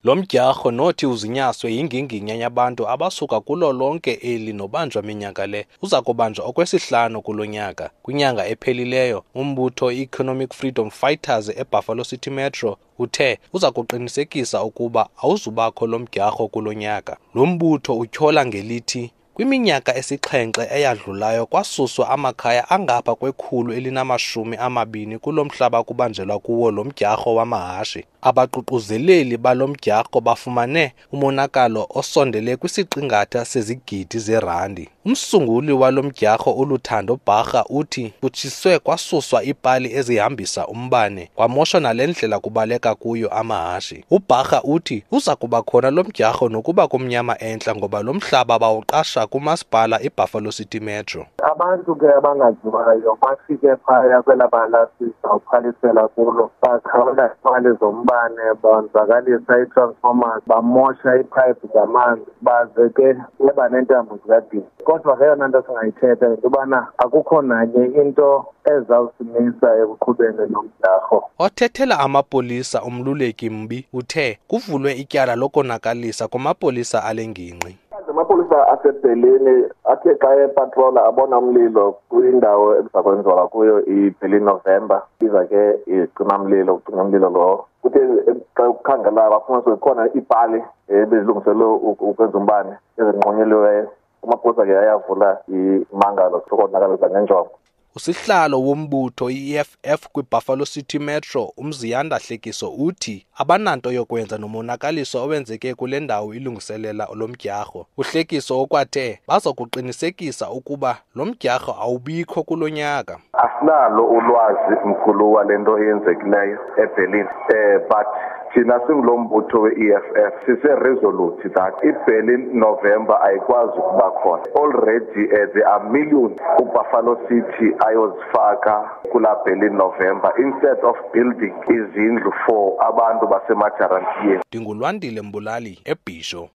Lo mdyarho nothi uzinyaswe yinginginya yabantu abasuka kulo lonke eli nobanjwa minyaka le uza kubanjwa okwesihlanu kulo nyaka. Kwinyanga ephelileyo, umbutho i-Economic Freedom Fighters eBuffalo City Metro uthe uza kuqinisekisa ukuba awuzubakho lo mdyarho kulo nyaka. Lo mbutho utyhola ngelithi kwiminyaka esixhenxe eyadlulayo kwasuswa amakhaya angapha kwe-120 kulo mhlaba kubanjelwa kuwo lo mdyarho wamahashe. Abaququzeleli balo mdyarho bafumane umonakalo osondele kwisiqingatha sezigidi zerandi. Umsunguli walo mdyarho uLuthando Bharha uthi kutshiswe kwasuswa iipali ezihambisa umbane kwamoshwa nale ndlela kubaleka kuyo amahashe. UBharha uthi uza kuba khona lo mdyarho nokuba kumnyama entla ngoba lo mhlaba bawuqasha kumasipala iBuffalo City Metro. Abantu ke abangaziwayo bafike phaya kwelaa bala sizawuphalisela kulo, baqhawula iipali zombane, bonzakalisa ii-transformers, bamosha iiphayiphi zamanzi, baze ke beba neentambo zikagesi. Kodwa ke eyona nto singayithetha yinto yobana akukho nanye into ezawusimisa ekuqhubeni lo mdyarho. Othethela amapolisa uMluleki Mbi uthe kuvulwe ityala lokonakalisa kumapolisa ale ngingqi. Amapolisa aseBerlin athe xa epatrola abona umlilo kwindawo ekuza kwenziwa kuyo iBerlin November, iza ke icimamlilo ucima umlilo lowo. Kuthe xa kukhangela bafumanisa kukhona iipali ebezilungiselwe ukwenza umbane ezinqonyeliweyo. Amapolisa ke ayavula imangalo sokonakalisa ngenjongo. Usihlalo wombutho i-EFF kwiBuffalo City Metro uMziyanda Hlekiso uthi abananto yokwenza nomonakaliso owenzeke kule ndawo ilungiselela lo mdyarho. UHlekiso ukwathe baza kuqinisekisa ukuba lo mdyarho awubikho kulo nyaka. Asinalo ulwazi mkhulu wale nto eyenzekileyo eBerlin, but thina singulo mbutho we-EFF sise-resolute that iBerlin November ayikwazi ukuba khona. Already there are millions uBuffalo City ayozifaka kula Berlin November instead of building izindlu for abantu basemajarantiyeni. NdinguLwandile Mbulali eBhisho.